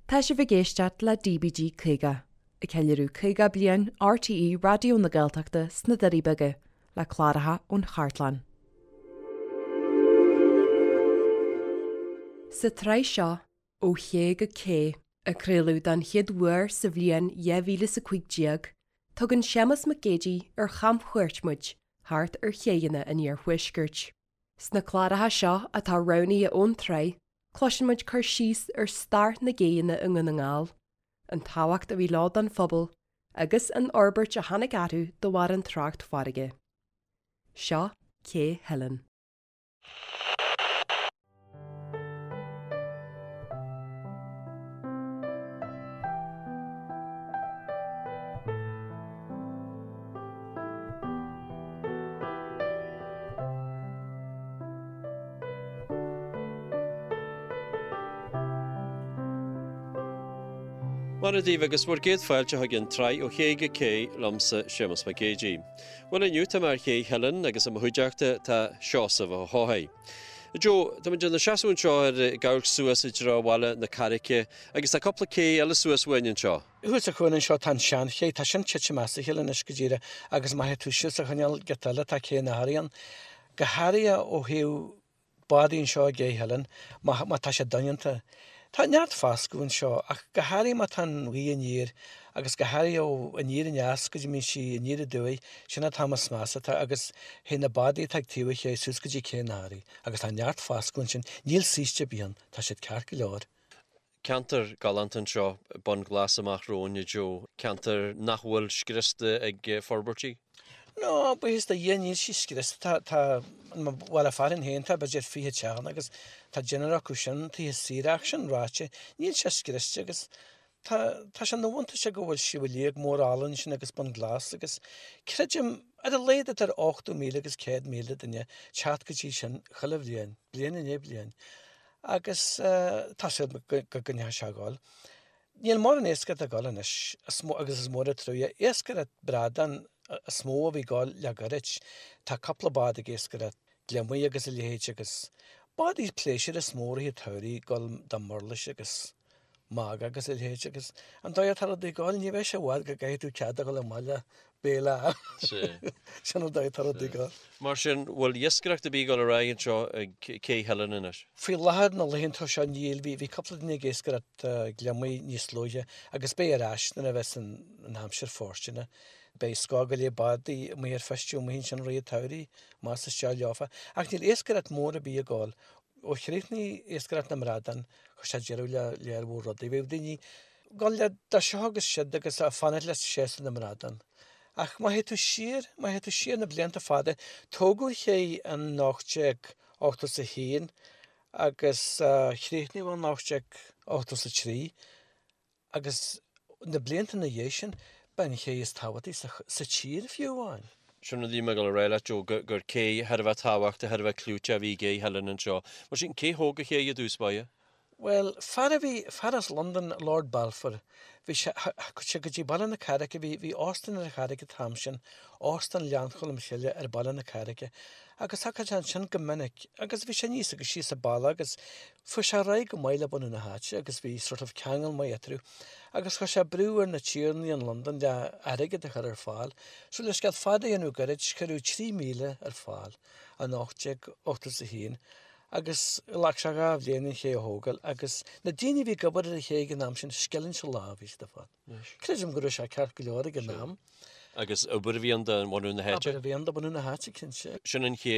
Tá sibh ag éisteacht le DBG 50, ag ceiliúradh 50 bliain RTÉ Raidió na Gaeltachta sna Doirí Beaga, le cláracha ón chartlann. Sa tsraith seo, Ó Ché go Cé, a craoladh don chéad uair sa bhliain 2015, tugann Séamus Mac Géidigh ar chamchuairt muid thart ar chéidheanna an iarthuaiscirt. Sna cláracha seo atá roghnaithe ón tsraith, cloiseann muid cur síos ar stair na gcéidheanna i nDún na nGall, an tábhacht a bhí leo don phobal agus an fhorbairt a tháinig orthu de bharr an trácht farraige. Seo Cé Theilinn. Mora daoibh agus bhur gcéad fáilte chuig an tsraith Ó Ché go Cé liomsa Séamus Mac Géidigh. Bhuel inniu tá mé ar Ché Theilinn agus i mo chuideachta tá Seosamh Ó hEochaidh. Joe, tá muid inár seasamh anseo ar ag amharc suas i dtreo Bhaile na Carraice agus tá cúpla cé eile suas uainn anseo. Thuas sa chúinne anseo tá an seanché, tá sin tite amach as a chéile anois go díreach agus má théann tú síos sa choinneal giota eile tá Cé an Athraí ann. Go háirithe ó thaobh bádaí anseo i gCé Theilinn, má má tá sé doineanta. Tá neart foscadh anseo ach go háirithe má tá an ghaoth aniar agus go háirithe ó aniar aneas go dtí mbíonn sí aniar aduaidh, sin an t-am is measa atá agus théann na bádaí atá ag taobh an ché suas go dtí Cé an Athraí agus tá neart foscadh ansin, níl saoiste ar bith ann, tá siad ceart go leor. Ceantar galánta anseo, Bun Glas amach romhainn, a Joe. Ceantar nach bhfuil scriosta ag forbairtí? No, buíochas do Dhia níl sí scriosta. Tá, tá, i mo bhaile fearainn féin tá b'fhéidir 20 teach ann agus tá deichniúr acu sin tithe saoire ach sin ráite, níl sé scriosta agus tá, tá sé ina bhuntáiste go bhfuil Sliabh Liag mór álainn ansin agus Bun Glas agus creidim ar a laghad idir 80,000 agus 100,000 duine teacht go dtí sin chuile bhliain, bliain i ndiaidh bliain. Agus tá súil agam go gcoinneoidh sé ag gabháil. Níl mórán iascaireacht ag gabháil anois, agus is mór an trua. Iascaireacht bradán is mó a bhí ag gabháil le goirid. Tá cúpla bád ag iascaireacht gliomaigh agus a leithéid agus bádaí pléisiúir is mó i rith an tsamhraidh ag gabháil do mhurlais agus magadh agus a leithéid agus an dóigh atá rudaí ag gabháil ní bheidh sé i bhfad go gcaithfidh tú cead a dhul amach le béile a fháil. Sin an dóigh atá rudaí ag gabháil. Mar sin, bhfuil iascaireacht ar bith ag dul ar aghaidh anseo ag Cé Theilinn anois? Faoi láthair na laethanta seo níl. Bhí bhí cúpla duine ag iascaireacht gliomaigh níos luaithe agus beidh ar ais nuair a bheas an an aimsir fóirsteanach. Beidh scór go leith bádaí amuigh ar feistiú amuigh ansin i rith an tsamhraidh más isteach leofa. Ach níl iascaireacht mór ar bith ag gabháil. Ó chríochnaigh iascaireacht na mbradán, chuir sé deireadh le lear mhór rudaí. Bhíodh daoine ag gabháil le do seo agus siud agus ag fanacht le séasúr na mbradán. Ach má théann tú siar, má théann tú siar na blianta fada, tógadh an ché in 1881 agus chríochnaíodh in 1883. Agus na blianta ina dhiaidh sin, ba an ché is tábhachtaí sa tír fiú amháin. Sin rud a bhí mé ag dul a rá leat, Joe, gur cé thar a bheith tábhachtach, thar a bheith clúiteach a bhí i gCé Theilinn anseo. Mar sin, cé thóg an ché i dtús báire? Bhuel, fear a bhí, fear as Londain, Lord Balfour, bhí sé, thagadh sé go dtí Baile na Carraice, bhí, bhí óstán ar an Charraig an t-am sin, Óstán Ghleann Cholm Chille ar Baile na Carraice, agus thagadh sé ansin go minic, agus bhí sé aníos agus síos an bealach agus Fuair sé ar aghaidh go maith le bunadh na háite agus bhí sort of ceangal maith eatarthu agus chuir sé brú ar na tiarnaí in Londain le airgead a chur ar fáil. So le scéal fada a dhéanamh gairid, cuireadh 3,000 ar fáil in 1881 agus ghlac sé 2 bhliain an ché a thógáil agus na daoine a bhí ag obair ar an ché ag an am sin, scilling sa lá a bhí siad ag fáil. Creidim go raibh sé ceart go leor ag an am. Agus obair a bhí ann do bhunú na háite. Obair a bhí ann do bhunú na háite, cinnte. Sin an ché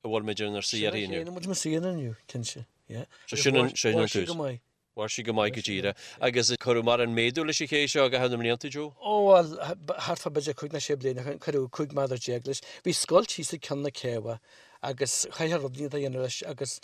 a bhfuil muid inár suí uirthi inniu. Sin an ché ina bhfuil muid inár suí inniu, cinnte, yeah. So sin an, sin an tús. Mhair sí go maith. Mhair sí go maith go díreach. Agus cuireadh mórán méadú leis an ché seo i gcaitheamh na mblianta, Joe? Ó bhuel, thart fá b'fhéidir cúig nó sé bliana ó shin, cuireadh 15 méadar leis. Bhí scoilt thíos ag ceann na céibhe agus chaithfeá rud éigin a dhéanamh leis agus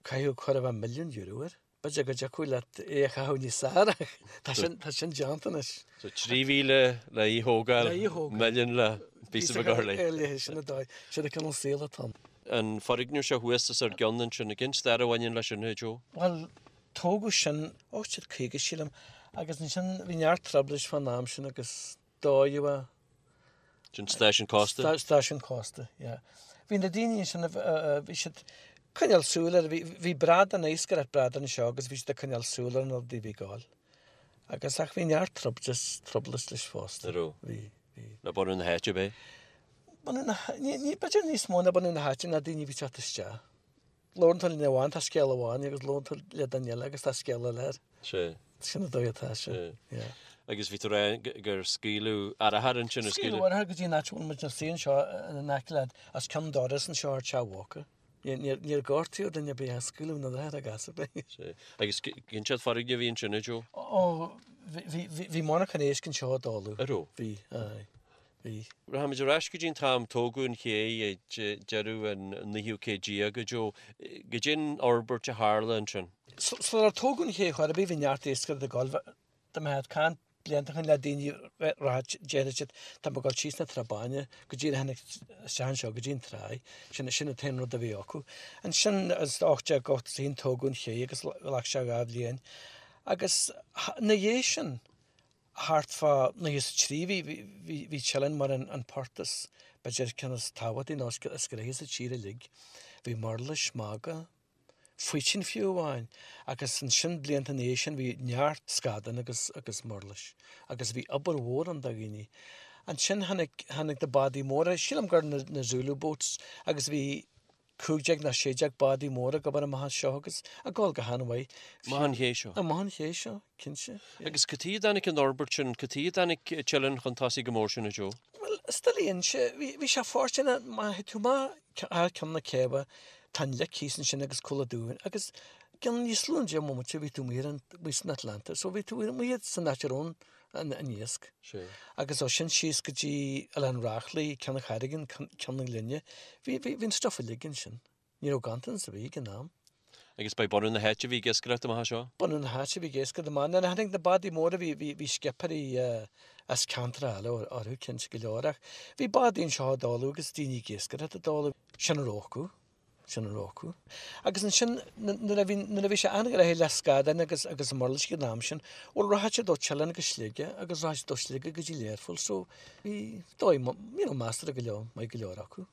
caitheadh chóir a bheith milliún euro air. B'fhéidir go dtiocfadh leat é a chaitheamh níos fearr ach tá sin, tá sin déanta anois. So 3,000 le í thógáil, Le í thógáil. milliún le píosa beag a chur léi. Léi, sin an dóigh, sin an cineál saoil atá ann. An foirgneamh seo thuas os ár gcionn ansin, cén stair a bhaineann leis sin, a Joe? Bhuel, tógadh sin 1850 sílim agus ansin bhí neart trioblóid fán am sin agus dódh é. Sin stáisiún cósta? Stáisiún cósta, yeah. Bhí na daoine ansin, bhí siad ag coinneáil súil ar, bhí bradán, iascaireacht bradán anseo agus bhí siad ag coinneáil súil ar na rudaí a bhí ag gabháil. Agus ach bhí neart trublas, trublas leis fosta. An raibh? Bhí, bhí. Le bunadh na háite, ab é? Bunadh na, ní, ní, b'fhéidir níos mó ná bunadh na háite ná daoine a bhí teacht isteach. Labhrann tú le duine amháin tá scéal amháin agus labhrann tú le duine eile agus tá scéal eile air. Sea. Sin an dóigh atá sé. Sea. Yeah. Agus bhí tú ag rá gur scaoileadh arrachar ansin, ar scaoileadh? Scaoileadh arrachar go dtí an áit a bhfuil muid ina suí anseo in aice le, os cionn doras anseo ar Teach Mhóca. Níor gortaíodh duine ar bith ach scaoileadh an arrachar ag as ar bith. Sea. Agus cén sórt foirgneamh a bhí ansin, a Joe? Ó, bhí, bhí, bhí monarchan éisc anseo i dtólamh. An raibh? Bhí, aye. Bhí. Rachaimid ar ais go dtí an t-am tógadh an ché ag deireadh an naoú céad déag, a Joe. Goidé an fhorbairt a tharla ansin? Sular tógadh an ché chor ar bith bhí neart iascaireachta ag dul. Dá mbeifeá ag caint blianta ó shin le daoine rachadh déarfadh siad tá mé ag dul síos na Trá Báine go díreach tháinig isteach anseo go dtí an tráigh. Sin sin an t-aon rud a bhí acu. Ansin is 1881 tógadh an ché agus ghlac sé 2 bhliain. Agus ina dhiaidh sin thart fá 93 bhí bhí bhí Teileann mar an an port is b'fhéidir ceann is tábhachtaí nó is gnoithí sa tír uilig. Bhí murlais, magadh, faoitín fiú amháin, agus ansin blianta ina dhiaidh sin bhí neart scadán agus agus murlais agus bhí obair mhór ann do dhaoine. Ansin tháinig tháinig na bádaí móra, sílim gur na na Zulu boats agus bhí 15 nó 16 bádaí móra ag obair amach anseo agus ag dul go han-mhaith. Amach an ché seo. Amach an ché seo, cinnte. Agus cad chuige a dtáinig an fhorbairt sin, cad chuige a dtáinig Teileann chun tosaigh go mór sin, a Joe? Bhuel, is doiligh a inse, bhí bhí sé fóirsteanach má théann tú amach thar ceann na céibhe, Tá an lic thíos ansin agus Cúil an Dúin agus i gcionn níos lú ná 10 mbomaite bhí tú amuigh ar an, amuigh san Atlantic so bhí tú amuigh san áit a raibh an, an iasc. Sea. Agus ó sin síos go dtí Oileán Reachlaí, Ceann an Charraigín, Ceann na Glinne, bhí, bhí, bhí an stuff uilig ansin. Ní raibh ganntanas ar bith ag an am. Agus ba é bunadh na háite a bhí ag iascaireacht amach anseo? Bunadh na háite a bhí ag iascaireacht amach. Nuair a tháinig na bádaí móra bhí, bhí, bhí scipéirí as ceantracha eile orthu cinnte go leor ach bhí bádaí anseo i dtólamh agus daoine ag iascaireacht i dtólamh. Sin a raibh acu. Sin a raibh acu. Agus ansin nuair a bhí, nuair a bhí sé an-ghnoitheach le scadáin agus, agus murlais ag an am sin, bhuel rachadh siad ó Teileann go Sligeach agus rachadh siad ó Sligeach go dtí Learpholl so bhí dóigh, you know, measartha go leor, maith go leor acu.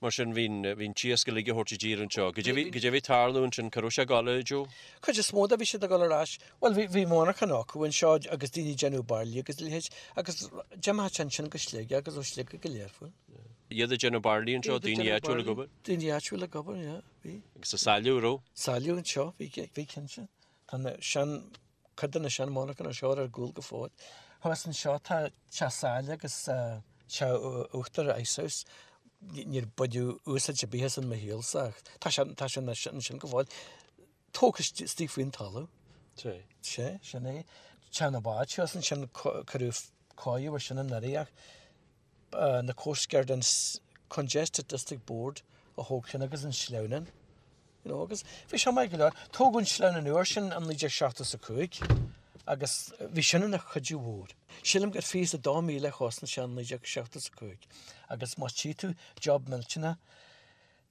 Mar sin, bhí an t-iasc uilig á thabhairt i dtír anseo. Goidé a bhí ag tarlú ansin, cá raibh sé ag dul, a Joe? Cuid is mó de bhí siad ag dul ar ais, bhuel bhí, bhí monarchan acu anseo agus daoine ag déanamh bairillí agus a leithéid agus d'imeodh sé ansin go Sligeach agus ó Sligeach go Learpholl. Iad ag déanamh bairillí anseo, daoine áitiúil ag obair? Daoine áitiúil ag obair, yeah, bhí. Agus ag sailleadh, an raibh? Sailleadh anseo, bhí, bhí cinnte. Tá na sean, cuid de na sean monarchana seo ar gcúl go fóill. Thuas anseo tá teach saille agus teach uachtair Ice House. Níor baineadh úsáid ar bith as in mo shaolsa ach tá sé, tá sé ansin go fóill. Tógtha istigh faoin talamh. Sea. Sea, sin é. Teach na bád thuas ansin cuireadh cóiriú ar sin anuraidh ach na Coast Guard an Congested District Board a thóg sin agus an sleamhnán. You know, agus bhí sé maith go leor. Tógadh an sleamhnán úr sin in 1975 agus bhí sin ina chuidiú mhór. Sílim gur 22,000 a chosnaigh sé in 1975 agus má tchí tú job millteanach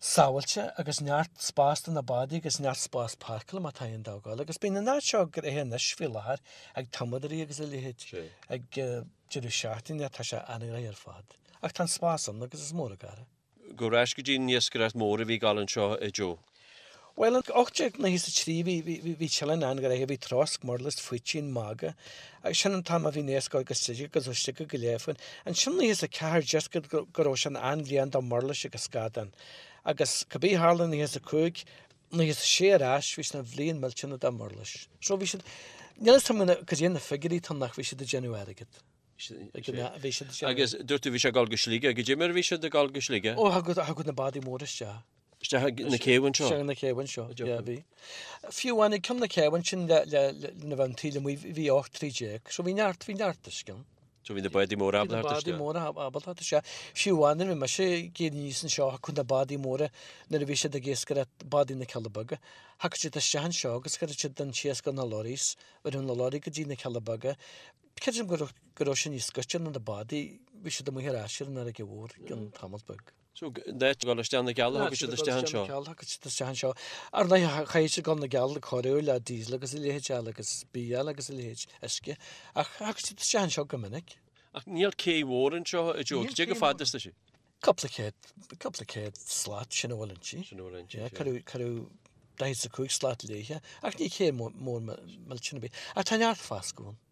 sábháilte agus neart spás do na bádaí agus neart spás páirceála má tá aon dógáil agus bíonn an áit seo gnoitheach anois faoi láthair ag tumadóirí agus a leithéid ag deireadh seachtaine tá sé an-ghnoitheach ar fad. Ach tá an spás ann agus is mór an gar é. Gabh ar ais go dtí an iascaireacht mhór a bhí ag dul anseo, a Joe. Bhuel, in 1893 bhí, bhí, bhí Teileann an-ghnoitheach, bhí trosc, murlais, faoitín, magadh, agus sin an t-am a bhí an iasc ag dul go Sligeach agus ó Sligeach go Learpholl. Ansin 94 deirtear go, go raibh sin an-bhliain do mhurlais agus scadán. Agus cibé a tharla in 95, 96 ar ais, bhí sin an bhliain millteanach do mhurlais. So bhí siad, níl a fhios agam cad é na figiúirí atá ann ach bhí siad ag déanamh airgead. Ag an, bhí siad ag déanamh. Agus dúirt tú bhí sé ag dul go Sligeach, goidé mar a bhí siad ag dul go Sligeach? Ó, thagadh, thagadh na bádaí móra isteach. Isteach ag na céibh anseo? Isteach ag na céibh anseo, yeah, bhí. Fiú amháin ag ceann na céibh ansin le, le, le, lena bheith an taoille amuigh, bhí 18 troigh, so bhí neart, bhí neart uisce ann. So bhí na bádaí móra ábalta theacht isteach? Bhí na bádaí móra ábalta theacht isteach. Fiú amháin nuair a bhí mise ag éirí aníos anseo, thiocfadh na bádaí móra nuair a bhí siad ag iascaireacht, bádaí na Cealla Beaga, thiocfadh siad isteach anseo agus chuireadh siad an t-iasc ar na lorries, chuireadh na lorry go dtí na Cealla Beaga. Creidim go raibh, go raibh sin níos gaiste ná na bádaí, bhí siad amuigh ar ais ar an fharraige mhór i gcionn tamall beag. So, in áit dul isteach na gCealla, thiocfadh siad isteach anseo. Thiocfadh siad isteach anseo. Ar ndóigh, chaithfeadh siad dul na gCeall ag cóiriú le diesel agus a leithéid eile agus bia eile agus a leithéid, uisce. Ach thiocfadh siad isteach anseo go minic. Ach níl cé mhór anseo, a Joe. Cad é chomh fada is tá sí? Cúpla céad, cúpla céad slat, sin a bhfuil inti. Sin a bhfuil inti, sea. Cuireadh, cuireadh 45 slat léithe, ach ní cé mór millteanach ar bith. Ach tá neart fascadh ann.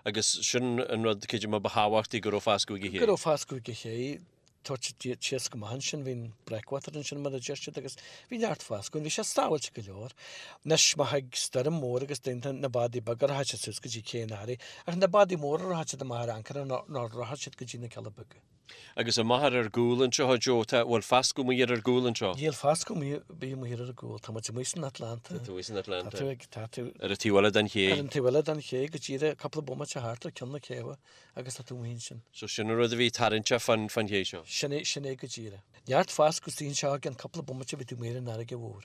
Agus sin an rud, creidim, ba thábhachtaí, go raibh fascadh ag an ché. Go raibh fascadh ag an ché, tabhairt síos go maith ansin, bhí an breakwater ansin mar a deir siad agus bhí neart fascadh ann, bhí sé sábháilte go leor. Anois má thig stoirm mhór agus déanta na bádaí beaga rachaidh siad suas go dtí Cé an Earraigh ach na bádaí móra rachaidh siad amach ar ancaire nó rachaidh siad go dtí na Cealla Beaga. Agus amach ar ár gcúl anseo, a Joe, tá, bhfuil fascadh amuigh ar ár gcúl anseo? Níl fascadh amuigh, bíonn amuigh ar ár gcúl, tá muid amuigh san Atlanta. Tá tú amuigh san Atlanta. Tá tú ag, tá tú. Ar an taobh eile den ché. Ar an taobh eile den ché, go díreach, cúpla bomaite thart ar ceann na céibhe agus tá tú amuigh ansin. So sin an rud a bhí tarraingteach fán, fán ché seo. Sin é, sin é go díreach. Neart fascadh istigh anseo i gceann cúpla bomaite bhí tú amuigh ar an fharraige mhór.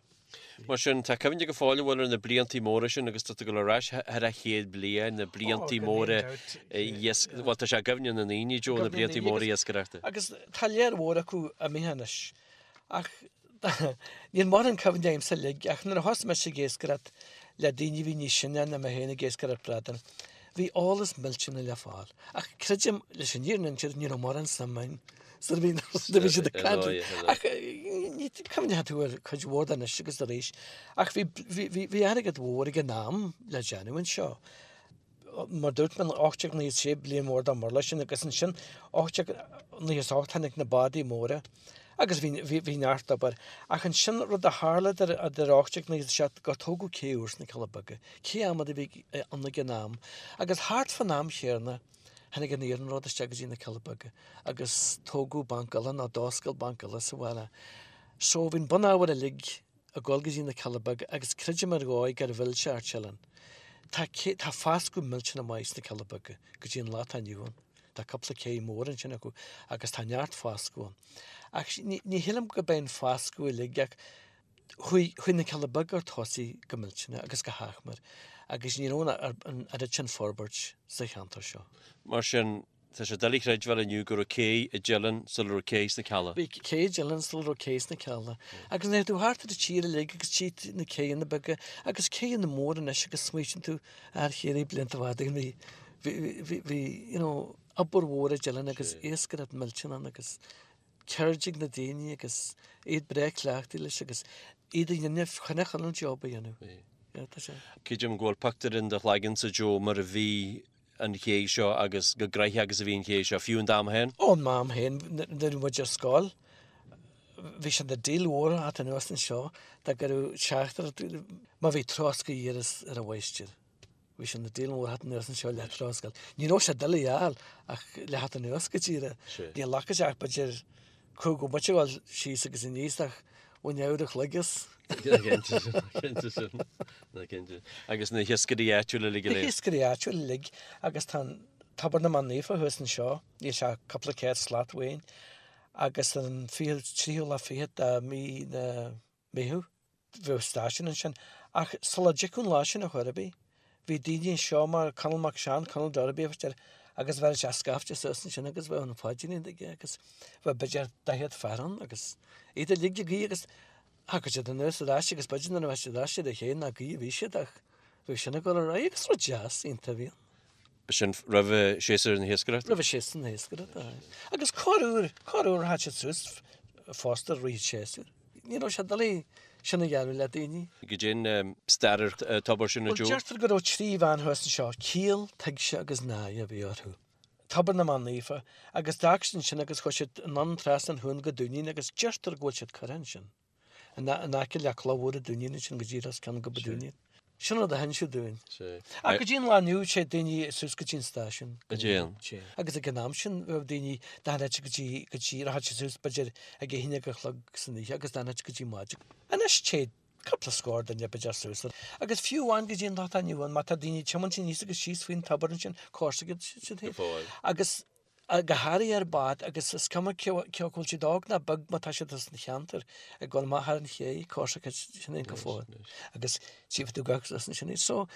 Mar sin, tá cuimhne go fóill an bhfuil ar na bliantaí móra sin agus tá tú ag dul ar ais thar an chéad bliain, na bliantaí móra iasc, bhuel tá sé i gcuimhne na ndaoine, Joe, na bliantaí móra iascaireachta. Agus tá lear mhór acu imithe anois. Ach níl mórán cuimhne agamsa uilig ach nuair a thosaigh mise ag iascaireacht le daoine a bhí níos sine ná mé féin ag iascaireacht bradán, bhí eolas millteanach le fáil. Ach creidim, leis an fhírinne a inse, ní raibh mórán suim agam Sar a bhí bhí siad ag caint. Ach ní cuimhneoidh tú ar cuid mhór de anois agus arís. Ach bhí bhí bhí airgead mhór ag an am le déanamh anseo. Mar dúirt mé 1896 bliain mhór dá murla sin agus ansin 1898 tháinig na bádaí móra agus bhí bhí bhí neart obair. Ach ansin rud a tharla idir idir 1897 gur tógadh cé úr sna Cealla Beaga, cé adhmad a bhí ann ag an am. Agus thart fán am chéanna Tháinig an iarnród isteach go dtí na Cealla Beaga agus tógadh banc eile nó d'oscail banc eile sa bhaile. So bhí an bunábhar uilig ag dul go dtí na Cealla Beaga agus creidim ar dhóigh gur mhill sé Ard Teileann. Tá tá fascadh millteanach maith sna Cealla Beaga go dtí an lá atá inniu ann. Tá cúpla cé mór ansin acu agus tá neart fascadh ann. Ach ní ní shílim go b'é an fascadh uilig ach Chuaigh chuaigh na Cealla Beaga ar tosaigh go millteanach agus go hachmair agus ní raibh an oiread sin forbairt sa cheantar seo. Mar sin, tá sé doiligh a chreidbheáil inniu go raibh cé i dTeileann sula raibh cé sna Cealla. Bhí cé i dTeileann sula raibh cé sna Cealla. Agus nuair atá tú thart ar an tír uilig agus tcí tú na céanna beaga agus céanna móra anois agus smaoitíonn tú ar chéirí blianta fada ó shin bhí bhí bhí bhí you know obair mhór i dTeileann agus iascaireacht millteanach ann agus ceird ag na daoine agus iad breá cleachtaithe leis agus iad a dhéanamh chun chun an job a dhéanamh. Yeah, tá sé. Creidim go bhfuil pictiúr in do chloigeannsa, Joe, mar a bhí an ché seo agus chomh gnoitheach agus a bhí an ché seo, fiú in d'am féin? Ó, in m'am féin, nuair a bhí muid ar scoil, bhí sé ina deal mhór a theacht anuas anseo dá gcuireadh teachtaireacht, má bhí troscadh ar ar an mháistir. Bhí sé ina deal mhór theacht anuas anseo le troscadh. Ní raibh sé doiligh a fháil ach le theacht anuas go díreach. Ní ghlacfadh sé ach b'fhéidir cúig bhomaite a dhul síos agus aníos ach bhain uair a chloig as. Cinnte sin, cinnte sin, cinnte. Agus na hiascairí áitiúla uilig go léir. Na hiascairí áitiúla uilig agus tá an Tobar na mBan Naofa thuas anseo, níl sé ach cúpla céad slat uainn, agus an fichiú, tríú lá fichead de mí na Meitheamh. Bheadh stáisiún ansin. Ach sula dtiocfadh an lá sin ar chor ar bith, bhí daoine anseo mar Conall Mac Seáin, Conall Darby a bhí air, agus bheireadh sé scaifte suas ansin agus bheadh an phaidrín aige agus bheadh b'fhéidir 40 fear ann agus iad uilig ag guí agus thagadh siad anuas ar ais agus b'fhéidir nuair a bheadh siad ar ais ar a chéile nach guí a bhí siad ach bheadh sin ag dul ar aghaidh agus rud deas iontach a bhí ann. B'shin roimh séasúr na hiascaireachta? Roimh séasúr na hiascaireachta, aye. Agus corruair, corruair rachadh siad suas fosta i rith an tséasúir. Ní raibh sé doiligh sin a dhéanamh le daoine. Goidé an stair ar an tobar sin a Joe? Bhuel, deirtear go raibh trí bhean thuas anseo, Ciall, Tuigse agus Náire a bhí orthu. Tobar na mBan Naofa, agus d'fhág siad ansin agus chuaigh siad anonn trasna an chuain go Dúinín agus deirtear go bhfuil siad curtha ansin. In aice le cloch mhór an Dúinín ansin go díreach os cionn Gob an Dúinín. Sin rud a hinseadh dúinn. Ach go dtí an lá inniu téid daoine suas go dtí an stáisiún. Go dtéann. Agus ag an am sin bheadh daoine d'fhanfadh go dtí, go dtí, rachadh siad suas b'fhéidir ag a haon déag a chlog san oíche agus d'fhanfadh go dtí maidin. Anois téid cúpla scór duine b'fhéidir suas. Agus fiú amháin go dtí an lá atá inniu ann má tá daoine ag tiomáint aníos agus síos faoin tobar ansin, comharsa siad féin. Go fóill. Agus go háirithe ar bád agus is cuma cé acu bhfuil siad óg ná beag má tá siad as an cheantar ag dul amach thar an ché, comharsa sin é go fóill agus tchífidh tú gach rud ansin iad. So,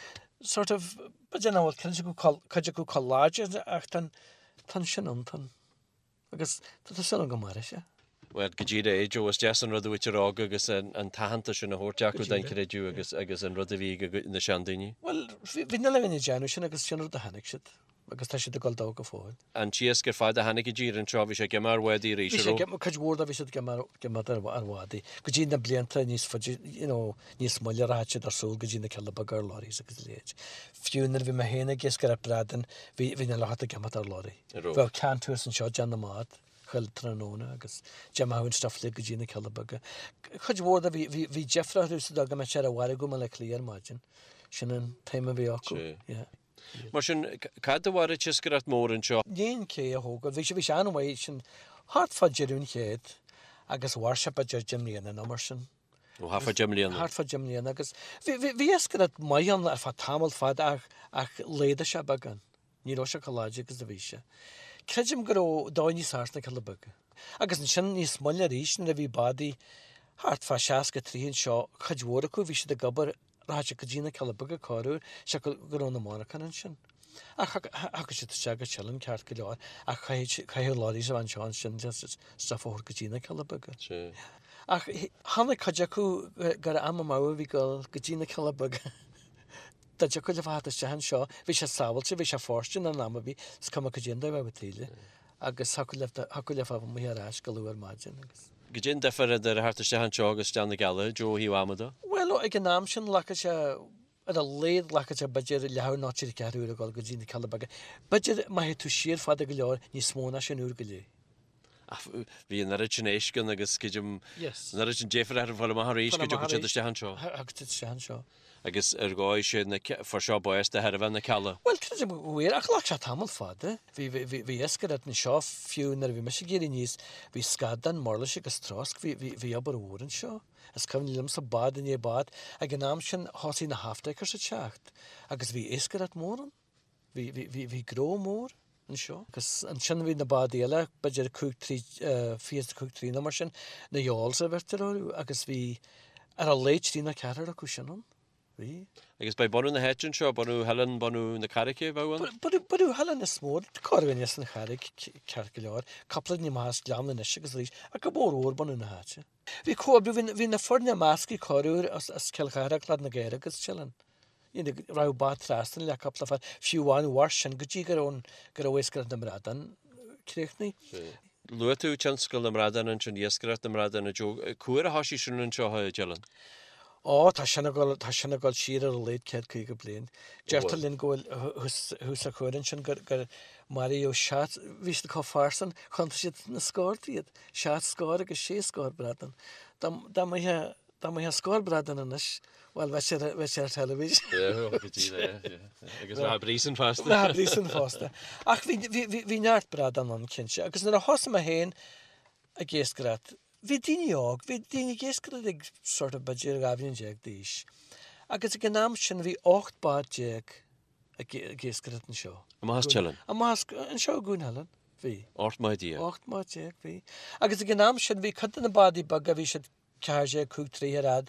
sort of, b'fhéidir nach bhfuil cuid acu cuid acu chomh láidir ach tá tá sin ann, tá agus tá súil agam go mairfidh sé. Bhuel, go díreach é, Joe, is deas an rud a mhuintir óg agus an t-aitheantas sin a thabhairt acu don chreideamh agus agus an rud a bhí ag na seandaoine. Bhuel, bhí na daoine ag déanamh sin agus sin rud a chonaic siad. Agus tá siad ag dul dó go fóill. An t-iasc ar fad a tháinig i dtír anseo, bhí sé ag imeacht ar bhádaí arís, Bhí sé ag imeacht, cuid mhór de bhí siad ag imeacht ar bhádaí. Go dtí na blianta níos faide, you know, níos moille rachadh siad ar siúl go dtí na Cealla Beaga ar lorries agus a leithéid. Fiú nuair a bhí mé féin ag iascaireacht bradán, bhí, bhí na lucht ag imeacht ar lorry. Bheadh can thuas anseo ag déanamh na mbád chuile tráthnóna agus d'imeodh an stuff uilig go dtí na Cealla Beaga. Cuid mhór de bhí, bhí, bhí deifre orthu sa dóigh go mbeadh sé ar an mhargadh i mBaile Átha Cliath ar maidin. Sin an t-aidhm a bhí acu. Yeah. Mar sin, cad a mhair an t-iascaireacht mór anseo? I ndiaidh an cé a thógáil, bhí sé, bhí sé an-mhaith sin thart fá deireadh an chéid agus mhair sé b'fhéidir deich mbliana nó mar sin. Ó, thart fá deich mbliana. Thart fá deich mbliana agus bhí, bhí, bhí iascaireacht maith ann ar feadh tamall fada ach, ach laghdaigh sé beagán. Ní raibh sé chomh láidir agus a bhí sé. Creidim go raibh dóigh níos fearr sna Cealla Beaga. Agus ansin níos moille arís nuair a bhí bádaí thart fá 63 anseo, cuid mhór acu bhí siad ag obair Rachadh siad go dtí na Cealla Beaga corruair, siocair go raibh na monarchana ansin. Ach thiocfadh siad isteach go Teileann ceart go leor ach chaithfeadh lorries a bheith anseo ansin just stuff a thabhairt go dtí na Cealla Beaga. Ach tháinig cuid acu gur am amú a bhí ag dul go dtí na Cealla Beaga. Dá dtiocfadh leo a theacht isteach anseo, bhí sé sábháilte, bhí sé fóirsteanach in am ar bith, is cuma cad é an dóigh a bheadh taoille. Agus thiocfadh leo thiocfadh leo a bheith amuigh ar ais go luath ar maidin agus. Cad é an difear idir a theacht isteach anseo agus isteach na gCealla, Joe, ó thaobh ama de? Bhuel, ag an am sin ghlacfadh sé, ar a laghad ghlacfadh sé b'fhéidir leathuair nó trí ceathrú uair a dhul go dtí na Cealla Beaga. B'fhéidir má théid tú siar fada go leor, níos mó ná sin uair go leith. Ach bhí an oiread sin éisc ann agus creidim an oiread sin deifir orthu fáil amach arís go dtiocfadh siad isteach anseo. Thiocfadh siad isteach anseo. Agus ar dhóigh sé na fuair seo bás de thairbhe na Cealla. Bhuel, creidim go bhfuair, ach ghlac sé tamall fada. Bhí, bhí, bhí iascaireacht anseo fiú nuair a bhí mise ag éirí aníos, bhí scadán, murlais agus trosc, bhí, bhí, bhí obair mhór anseo. Is cuimhin liomsa bád i ndiaidh bád, ag an am sin thosaigh na half-deckers ag teacht agus bhí iascaireacht mhór ann. Bhí, bhí, bhí, bhí gnó mór anseo. Agus ansin bhí na bádaí eile, b'fhéidir 5, 3, 25 troigh nó mar sin, na yawls a bheirtear orthu agus bhí ar a laghad trí nó ceathrar acu sin ann. Bhí. Agus ba é bunú na háite anseo, bunú Theileann, bunú na Carraice a bheadh ann? Bunú, bunú Theileann is mó, corrdhuine as an Charraig ceart go leor, cúpla duine amach as Gleann anois agus arís, ach go mór mhór bunú na háite. Bhí comhoibriú, bhí, bhí na foirne measctha corruair as, as Cill Chartha, Claidh na gCaorach agus Teileann. You know, raibh bád trasna le cúpla fear, fiú amháin mhair sin go dtí go raibh an, go raibh iascaireacht na mbradán críochnaithe. Luaigh tú tionscal na mbradán ansin, iascaireacht na mbradán, a Joe. Cá huair a thoisigh sin anseo i dTeileann? Ó, tá sin ag dul, tá sin ag dul siar ar a laghad 150 bliain. Deirtear linn go bhfuil thuas, thuas sa chuan ansin gur, gur maraíodh seacht, bhí siad chomh fairsing, chiontaigh siad na scórtha iad, seacht scór agus sé scór bradán. Dá, dá mbeadh, dá mbeadh scór bradán anois, Bhuel, bheadh sé bheadh sé ar teilifís. Agus bheadh príosún fosta. Bheadh príosún fosta. Ach bhí bhí bhí bhí neart bradán ann, cinnte. Agus nuair a thosaigh mé féin ag iascaireacht, bhí daoine óg, bhí daoine ag iascaireacht ag sort of b'fhéidir 12 bhliain d'aois. Agus ag an am sin bhí 18 bád ag ag iascaireacht anseo. Amach as Teileann? Amach as, anseo i gCuan Theileann, bhí. 18 mbád. 18 mbád, bhí. Agus ag an am sin bhí cuid de na bádaí beaga, bhí siad 14, 5 troigh ar fhad,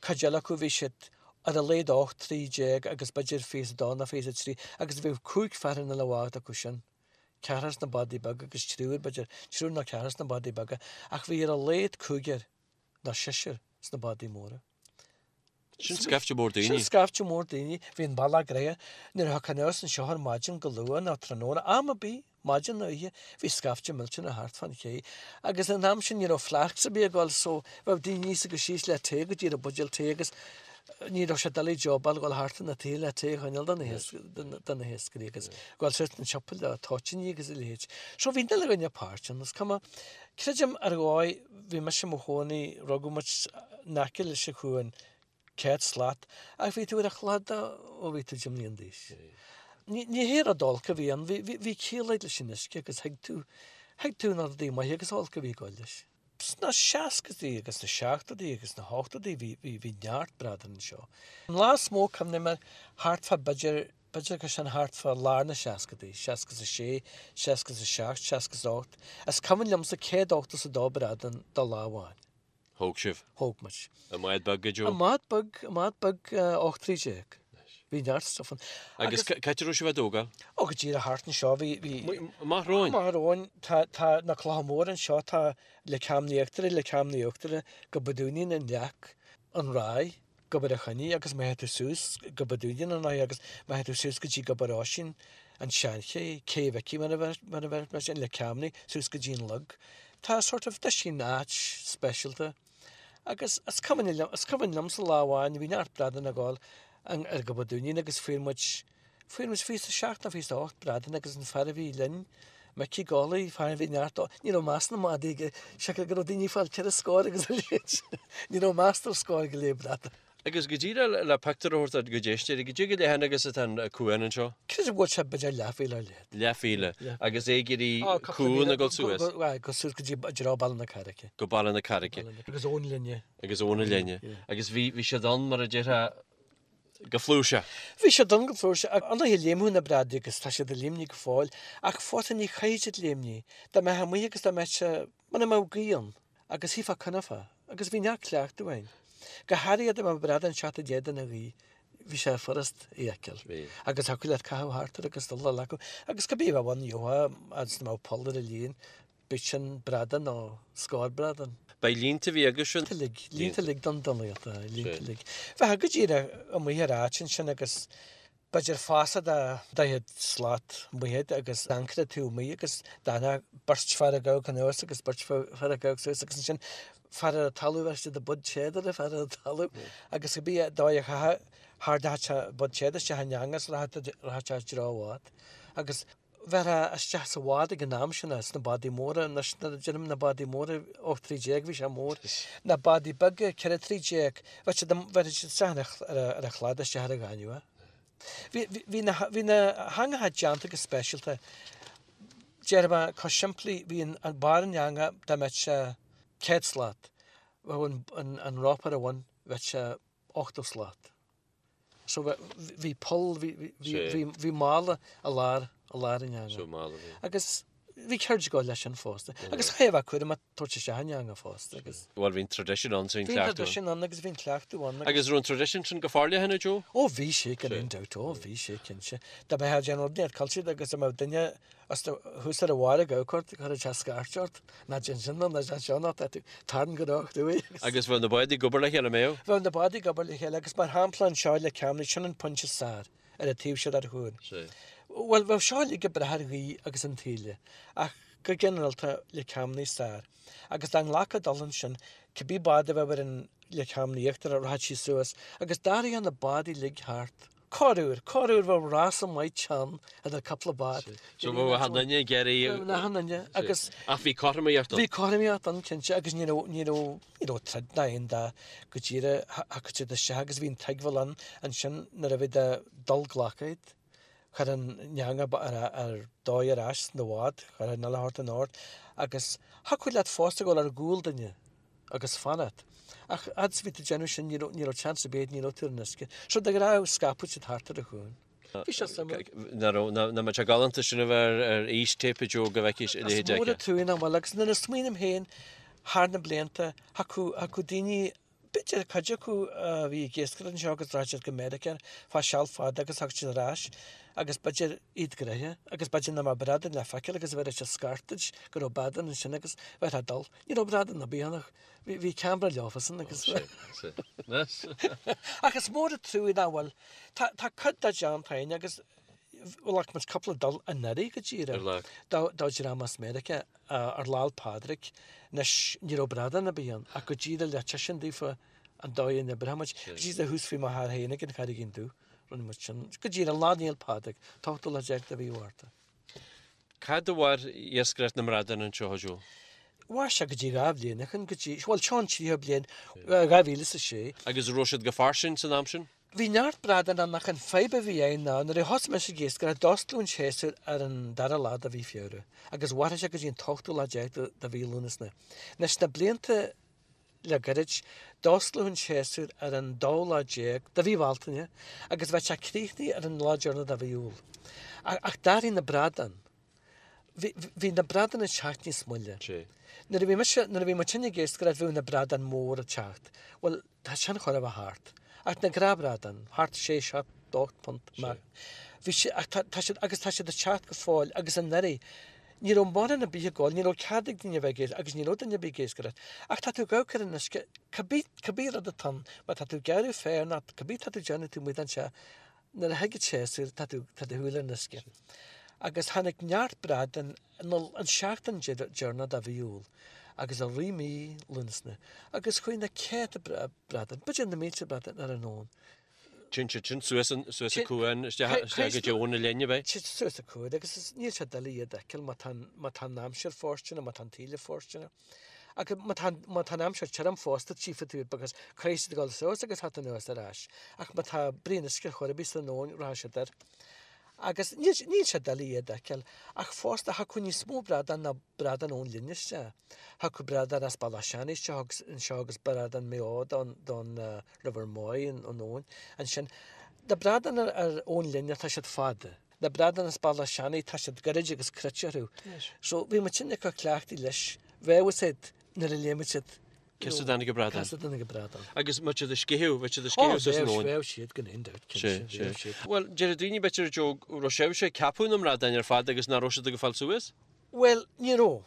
cuid eile acu bhí siad ar a laghad 18 troigh agus b'fhéidir 22 nó 23 agus bhíodh cúig fear in uile bhád acu sin, ceathrar sna bádaí beaga agus triúr, b'fhéidir, triúr nó ceathrar sna bádaí beaga ach bhí ar a laghad cúigear nó seisear sna bádaí móra. Sin scaifte mór daoine. Sin scaifte mór daoine. Bhí an bealach gnoitheach. Nuair a thiocfá anuas anseo ar maidin go luath nó tráthnóna, am ar bith, maidin nó oíche, bhí scaifte millteanach thart fán ché. Agus an am sin ní raibh flasks ar bith ag dul so bheadh daoine aníos agus síos le tae go dtí buidéal tae agus ní raibh sé doiligh jobáil dhul thart na tae le tae a choinneáil do na hiascairí agus dhul suas an siopa le toitíní agus a leithéid. So bhí an uile dhuine páirteach ann. Is cuma, creidim ar dhóigh, bhí mise i mo chónaí, rugadh muid in aice leis an chuan, 100 slat, ach bhí tú ar an chladach ó bhí tú 10 mbliana d'aois. Ní hé rud olc a bhí ann, bhí ciall agat leis an uisce agus thuig tú, thuig tú na rudaí maithe agus olc a bhí ag dul leis. Sna seascaidí agus sna seachtóidí agus sna hochtóidí bhí, bhí, bhí neart bradán anseo. An lá is mó cuimhním air, thart fá b'fhéidir, b'fhéidir gur sin thart fá lár na seascaidí, 66, 67, 68, is cuimhin liomsa 182 bradán de lá amháin. Thóg sibh? Thóg muid. I mbád beag, a Joe? I mbád beag, i mbád beag 18 troigh. Bhí neart stuff ann. Agus cá háit a raibh sibh á dtógáil? Ó, go díreach thart anseo, bhí, bhí. Amach romhainn? Amach romhainn. Tá, tá na clocha móra anseo, tá Leic Chaim na hÍochtaire, Leic Chaim na hUachtaire, Gob a' Dúinín, an Leac, an Ráith, Gobar a' Choinnigh agus má théid tú suas Gob a' Dúinín an Ráith agus má théid tú suas go dtí Gobar Oisín. an tSeanché, Cé Mhicí mar a bheir mar sin, Leic Ceamnaí, suas go dtí an Lug. Tá sort of, tá sin áit speisialta. Agus is cuimhin liom, is cuimhin liomsa lá amháin, bhí neart bradán ag gabháil ar Ghob a' Dúinín agus fuair muid, fuair muid 27 nó 28 bradán agus an fear a bhí linn, Micí Gauley, fear a bhí neart, ní raibh meas na madaí aige, siocair go raibh daoine ag fáil ceithre scór agus a leithéid, ní raibh meas ar scór go leith bradán. Agus go díreach le pictiúr a thabhairt do d'éisteoirí, goidé chomh leathan agus atá an cuan anseo? Creidim go bhfuil sé b'fhéidir leathmhíle ar leithead. Leathmhíle. Agus é ag éirí cuan ag dul suas? Go suas go dtí i dtreo Baile na Carraice. Go Baile na Carraice. Agus ón linne. Agus ón linne. Agus bhí bhí siad ann mar a déarfá go flúirseach. Bhí siad ann go flúirseach. Ar ndóighe léimfeadh na bradaí agus tá siad ag léimnigh go fóill ach fós ní chaithfidh siad léimnigh. Dá mbeifeá amuigh agus dá mbeadh sé Muna mbeadh gaoth ann, agus shuífeá coinneofá, agus bhí neart cleachtadh againn. Go háirithe dá mbeadh bradán ag teacht i d'éadan na gaoithe, bhí sé furast é a fheiceáil. Agus thiocfadh leat caitheamh thart air agus dul a ghlacadh. Agus cibé a bheadh ann, gheofá, agus dá mbeadh poll ar an líon, bíodh sin bradán nó scór bradán. Ba línte a bhí agaibhse? Línte uilig, línte uilig don donnlaíocht, línte uilig. Bheifeá go díreach amuigh ar áit ansin agus B'fhéidir fásach de 40 slat amuigh agat agus ancaire taobh amuigh agus d'fhanfadh beirt fear ag amharc anuas agus beirt fear ag amharc suas agus ansin fear ar an talamh bheir siad a bud téad ar an fear ar an talamh agus cibé dóigh a chaithfeadh thardachadh sé bud téad isteach in eangas rachadh sé i dtreo an bhád agus bheirfeá isteach sa bhád ag an am sin sna bádaí móra anois nuair a deirim na bádaí móra 18 troigh bhí sé mór na bádaí beaga 14 troigh bheadh siad bheirfeadh siad isteach ar ar an chlad isteach ar an ghaineamh. Bhí bhí na bhí na heangacha déanta go speisialta. Déarfaidh mé chomh simplí bhí an an barr an eanga dá mbeadh sé 100 slat bheadh an an an rópa ar a bhun bheadh sé 80 slat. So bhí poll, bhí mála i lár, i lár an eanga. So mála bhí. Agus bhí ceird ag gabháil leis sin fosta. Agus chaithfeá a bheith cúramach tabhairt isteach an eanga fosta agus. Bhuel bhí an tradition ann so bhí an cleachtadh ann. Bhí an tradition ann agus bhí an cleachtadh ann. Agus raibh an tradition sin go forleathan a Joe? Ó bhí sé gan aon dabht, ó bhí sé cinnte. Dá mbeifeá ag déanamh rud inteacht caillte agus dá mbeadh duine As do thuas ar a bharr ag amharc ort, chuirfeadh sé scairt ort, ná déan sin nó ná déan seo nó tá tú tarraing go ró-chruaidh agus. Agus bheadh na báid ag obair le chéile, an mbeadh? Bheadh na báid ag obair le chéile agus mar shampla anseo i Leic Ceamnaí, sin an pointe is fearr ar an taobh seo den chuan. Sea. Bhuel, bheadh seo uilig ag brath ar ghaoth agus an taoille ach go ginearálta Leic Ceamnaí is fearr. Agus dá nglacfá dul ansin, cibé bád a bheadh ar an Leic Ceamnaí íochtarach, rachadh sí suas agus d'athraíodh na báid uilig thart. Corruair, corruair bheadh rása maith teann idir cúpla bád. So bheadh achan duine ag iarraidh. Bheadh achan duine agus. Ach bhí cothromaíocht ann. Bhí cothromaíocht ann cinnte agus ní raibh, ní raibh, ní raibh troid ná aon dath go díreach thiocfadh siad isteach agus bhí an tuigbheáil ann ansin nuair a bhí ag dul glacadh iad. Chuir an eanga ar, ar dóigh ar ais sna bhád, chuir an uile shórt in ord agus thiocfadh leat fosta dul ar gcúl duine. agus fanacht. Ach fhad is a bhí tú ag déanamh sin ní raibh, ní raibh chance ar bith, ní raibh tú ar an uisce. So de ghnáth scaipeadh siad thart ar an chuan. Bhí sé suimiúil. Nach raibh, nach mbeadh sé galánta sin a bheith ar, ar fhístéip a Joe go bhfeicfís a leithéid Is mór an trua nach bhfuil agus nuair a smaoiním féin thar na blianta, thiocfadh, thiocfadh daoine, b'fhéidir cuid acu a bhí ag iascaireacht anseo agus rachadh siad go Meiriceá fá seal fada agus thiocfadh siad ar ais agus b'fhéidir iad gnoitheach agus b'fhéidir nach mbeadh bradán le feiceáil agus bheir siad scairt duit go raibh bradán ansin agus bheifeá ag dul. Ní raibh bradán ar bith ann ach bhí ceamara leofasan agus Ach is mór an trua nach bhfuil. Tá tá cuid de déanta againn agus ghlac muid cúpla dul anuraidh go díreach do do dhream as Meiriceá ar Lá 'le Pádraig. Anois ní raibh bradán ar bith ann ach go díreach le tuiscint daofa an dóigh a n-oibreodh muid. Go díreach thuas faoi mo thar féin ag an Charraigín Dubh rinne muid sin. Go díreach Lá Naomh Pádraig, t-ochtú lá déag de mhí Mhárta. Cad a mhair iascaireacht na mbradán anseo, a Joe? Mhair sé go dtí 2 bhliain ó shin, go dtí, bhuel, seo an tríú bliain, 2006. Agus an raibh siad go fairsing san am sin? Bhí neart bradán ann ach an fadhb a bhí ann ná nuair a thosaigh mise ag iascaireacht d'osclaíodh an séasúr ar an dara lá de mhí Feabhra agus mhairfeadh sé go dtí an t-ochtú lá déag de mhí Lúnasa. Anois na blianta Le gairid, d'osclaíodh an séasúr ar an dóú lá déag de mhí Bhealtaine agus bheadh sé críochnaithe ar an lá deireanach de mhí Iúil. Ach d'athraigh na bradáin. Bhí, bhí na bradáin ag teacht níos moille. Nuair a bhí mise, nuair a bhí muid ag iascaireacht bhíodh na bradáin móra ag teacht. Bhuel, tá sin chóir a bheith thart. Ach na gnáthbhradáin, thart sé, seacht, ocht punt amach. Bhí sé, ach tá, tá siad, agus tá siad ag teacht go fóill agus anuraidh, ní raibh mórán ar bith ag gabháil, ní raibh cead ag daoine a bheith ag iascaireacht agus ní raibh duine ar bith ag iascaireacht. Ach tá tú ag amharc ar an uisce, cibé, cibé rud atá ann, má tá tú ag gearradh féir nó cibé tá tú ag déanamh taobh amuigh den teach. Nuair a thig an séasúr, tá tú, tá do shúil ar an uisce. Agus tháinig neart bradán an seachtain deireanach de mhí Iúil agus i rith mí Lúnasa agus chuaigh na céadta bradán, b'fhéidir na mílte bradán ar an abhainn. Téann siad sin suas an, suas an cuan, isteach, isteach go dtí Abhainn na Linne, ab é? Téann suas an cuan agus is, níl sé doiligh iad a fheiceáil má tá an, má tá an aimsir fóirsteanach, má tá an taoille fóirsteanach. Ach má tá, má tá an aimsir tirim fosta tchífidh tú iad because caithfidh siad a dhul suas agus theacht anuas ar ais. Ach má tá brí an uisce chor ar bith san abhainn rachaidh siad air. Agus níl, níl sé doiligh iad a fheiceáil. Ach fosta thiocfadh níos mó bradán ná bradán ón linn isteach. Thiocfadh bradán as Bealach Seanaidh isteach agus anseo agus bradán Maigh Eo don, don River Moy an abhainn. Ansin, na bradáin ar, ar ón linne tá siad fada. Na bradáin as Bealach Seanaidh tá siad gairid agus cruit orthu. So bhí muid sin acu cleachtaithe leis. Bheadh a fhios a'd nuair a léimfeadh siad Cé as a dtáinig an bradán. Cé as a dtáinig an bradán. Agus má siad ag sceitheadh, bheadh siad ag sceitheadh suas an abhainn. Bheadh siad gan aon dabht, cinnte, bheadh siad. Bhuel, deir daoine b'fhéidir, Joe, go raibh sibhse ag ceapadh na mbradáin ar fad agus nach raibh siad ag fáil suas? Bhuel, ní raibh.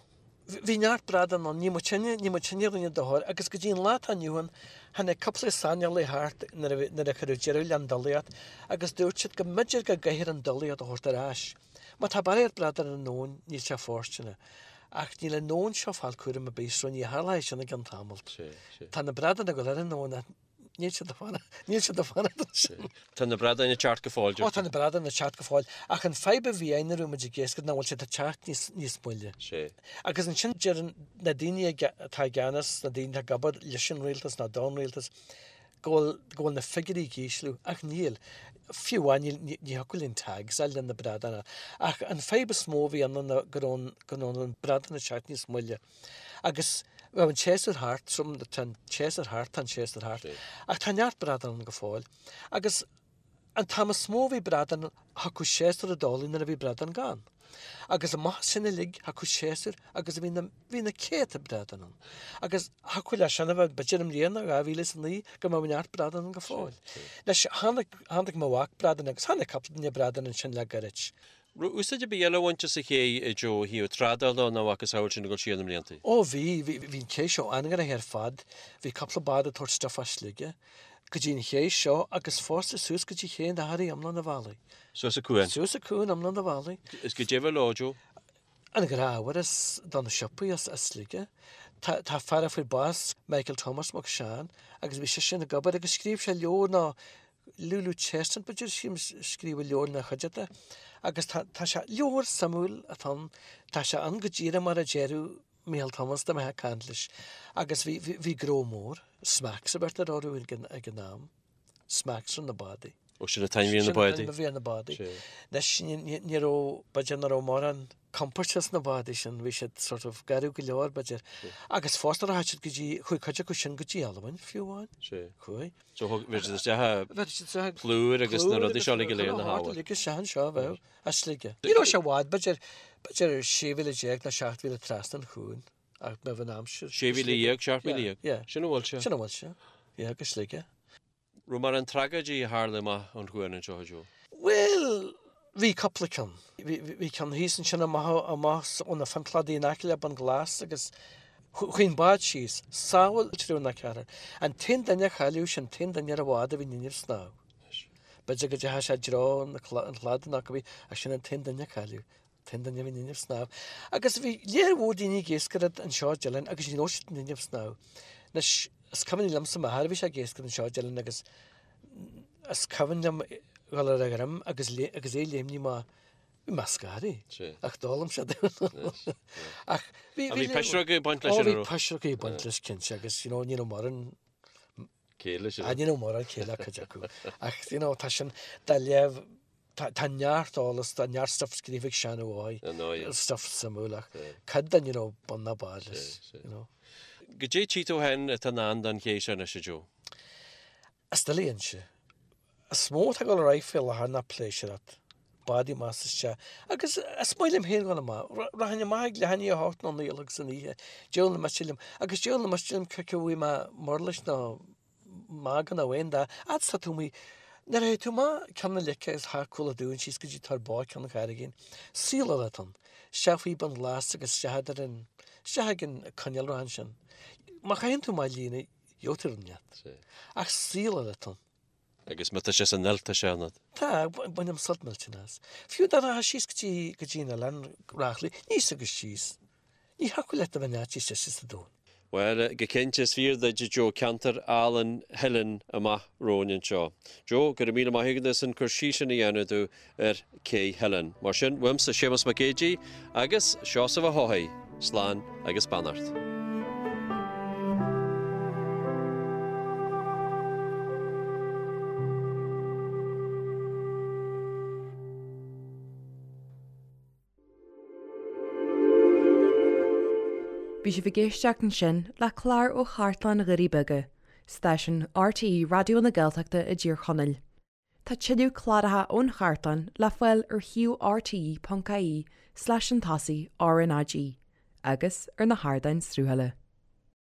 Bhí neart bradán ann, ní muidinne, ní muidinne a rinne dochar agus go dtí an lá atá inniu ann, tháinig cúpla saineolaí thart nuair a bhí, nuair a cuireadh deireadh le an dulaíocht agus dúirt siad go mb'fhéidir go gcaithfear an dulaíocht a thabhairt ar ais. Má tá barraíocht bradán ar an abhainn, níl sé fóirsteanach. Ach níl an abhainn seo ag fáil cúram ar bith so ní tharlóidh sin i gceann tamalt. Tá na bradáin ag dul ar an abhainn ach níl siad ag fanacht, níl siad ag fanacht ansin. Tá na bradáin ag teacht go fóill, deir tú. Ó tá na bradáin ag teacht go fóill. Ach an fadhb a bhí ann nuair a bhí muid ag iascaireacht ná bhfuil siad ag teacht níos, níos moille. Agus ansin deireann na daoine atá i gceannas, na daoine atá ag obair leis an rialtas nó don rialtas, go bhfuil, go bhfuil na figiúirí ag ísliú, ach níl. Fiú amháin níl, ní, ní thiocfadh linn tags a fháil le na bradáin a. Ach an fadhb is mó a bhí ann ná go raibh an, go raibh an bradán ag teacht níos moille. Agus bheadh an séasúr thart, so tá an séasúr thart, tá an séasúr thart. Ach tá neart bradán ann go fóill. Agus An t-am is mó a bhí bradán, thiocfadh séasúr i dtólamh nuair a bhí bradán gann. Agus amach as sin uilig thiocfadh séasúr agus bhí na, bhí na céadta bradán ann. Agus thiocfadh leis sin a bheith, b'fhéidir i mbliana, 2009, go mbeadh neart bradán ann go fóill. Anois, chonaic, chonaic mo mhac bradán agus chonaic cúpla duine bradán ansin le gairid. Raibh úsáid ar bith eile á bhaint as an ché, a Joe, ó thaobh trádála nó a mhacasamhail sin ag dul siar na mblianta? Ó bhí, bhí, bhí an cé seo an-ghnoitheach ar fad. Bhí cúpla bád ag tabhairt stuif as Sligeach go dtí an ché seo agus fosta suas go dtí Ché an Athraí iomlán an bhealaigh. Suas an cuan? Suas an cuan iomlán an bhealaigh. Is goidé a bhí leo, Joe? An gnáth-ábhar as do na siopaí as Sligeach. Tá, tá fear a fuair bás, Michael Thomas Mac Seáin, agus bhí seisean ag obair agus scríobh sé leabhar nó Lulu Chestnut, b'fhéidir, sílim, scríobh leabhar ina chuideachta agus tá, tá sé, leabhar suimiúil atá ann, tá sé ann go díreach mar a déarfadh Micheál Thomas dá mbeifeá ag caint leis agus bhí, bhí, bhí gnó mór, smacks a bheirtear orthu ag an, ag an am, smacks ar na bádaí. Ó, sin an t-ainm a bhí ar na bádaí. Sin an t-ainm a bhí ar na bádaí. Anois, ní, ní, ní raibh, b'fhéidir nach raibh mórán compóirt sna bádaí sin, bhí siad sort of garbh go leor, b'fhéidir. Agus fosta rachaidh siad go dtí, chuaigh cuid acu sin go dtí Albain, fiú amháin. Chuaigh. So thug, bhí siad isteach a plúr agus na rudaí seo uilig go léir na hábhair. Uilig isteach anseo a bheadh, as Sligeach. Ní raibh sé i bhfad, b'fhéidir, b'fhéidir 16 mhíle nó 17 mhíle trasna an chuain, ach bheadh an aimsir. 16 mhíle, 17 mhíle? Yeah. Sin a bhfuil sé. Sin a bhfuil sé, yeah, go Sligeach. Raibh mórán tragóidí a tharla amach ón chuan anseo, a Joe? Bhuel, bhí cúpla ceann. Bhí ceann thíos ansin amach amach ó na Fionnchladaí in aice le Bun Glas agus chuaigh an bád síos. Sábháil triúr nó ceathrar. An t-aon duine a cailleadh, sin an t-aon duine ar an bhád a bhí in innimh snámh. B'fhéidir go dteachaigh sé i dtreo an chladaigh nó cibé, ach sin an t-aon duine a cailleadh. T-aon duine a bhí in innimh snámh. Agus bhí léar mhór daoine ag iascaireacht anseo i dTeileann agus ní raibh siad in innimh snámh. Anois, is cuimhin liomsa m'athair, bhí sé ag iascaireacht anseo i dTeileann agus is cuimhin liom dhul ar a dhroim agus agus é léimní má bhí mé scartha ach d'fhoghlaim sé Ach bhí bhí pisreog ag baint leis an Ó bhí pisreog ag baint leis cinnte agus you know ní raibh mórán céille leis. Ní raibh mórán céille ag cuid acu. Ach you know tá sin dá léamh Tá neart eolas, tá neart stuff scríofa ag Seán Ó hÁdhaigh, stuff suimiúil ach cuid de ní raibh bun ná barr leis, you know. Goidé tchí tú féin atá i ndán don ché seo anois, a Joe? Is doiligh a inse. Is mó atá ag dul ar aghaidh faoi láthair ná pléisiúracht, bádaí amach is isteach. Agus is maith liom féin dhul amach. Rachainn amach ag leath i ndiaidh a hocht nó naoi a chlog san oíche, diabhal na miste liom. Agus diabhal na miste liom cé acu a bhfaighidh mé murlais nó magadh nó aon dath, fhad is tá tú amuigh. Nuair a théid tú amach Ceann na Leice agus thar Cúil an Dúin síos go dtí Tor Bó Ceann an Charraigín, saol eile atá ann. Isteach faoi Bun Glas agus isteach idir an, isteach ag an coinnealra ansin. Má chaitheann tú amach líne, gheobhaidh tú rud inteacht. Ach saol eile atá ann. Agus má tá sé san fheoil tá sé ionat. Tá, bainim sult millteanach as. Fiú dá rachfá síos go dtí, go dtí an oileán Reachraidh, aníos agus síos, ní thiocfadh leat a bheith in áit níos deise sa domhan. Bhuel, go cinnte, is fíor duit, a Joe, ceantar álainn Theilinn amach romhainn anseo. Joe, go raibh míle maith agat as an cur síos sin a dhéanamh domh ar Cé Theilinn. Mar sin, uaimse Séamus Mac Géidigh agus Seosamh Ó hEochaidh, slán agus beannacht. Bhí sibh ag éisteacht ansin le clár ó Chartlann Dhoirí Beaga, stáisiún RTÉ Raidió na Gaeltachta i dTír Chonaill. Tá tuilleadh cláracha ón chartlann le fáil ar shuíomh rte.ie slash an tosaigh RnaG agus ar na hardáin sruthaithe.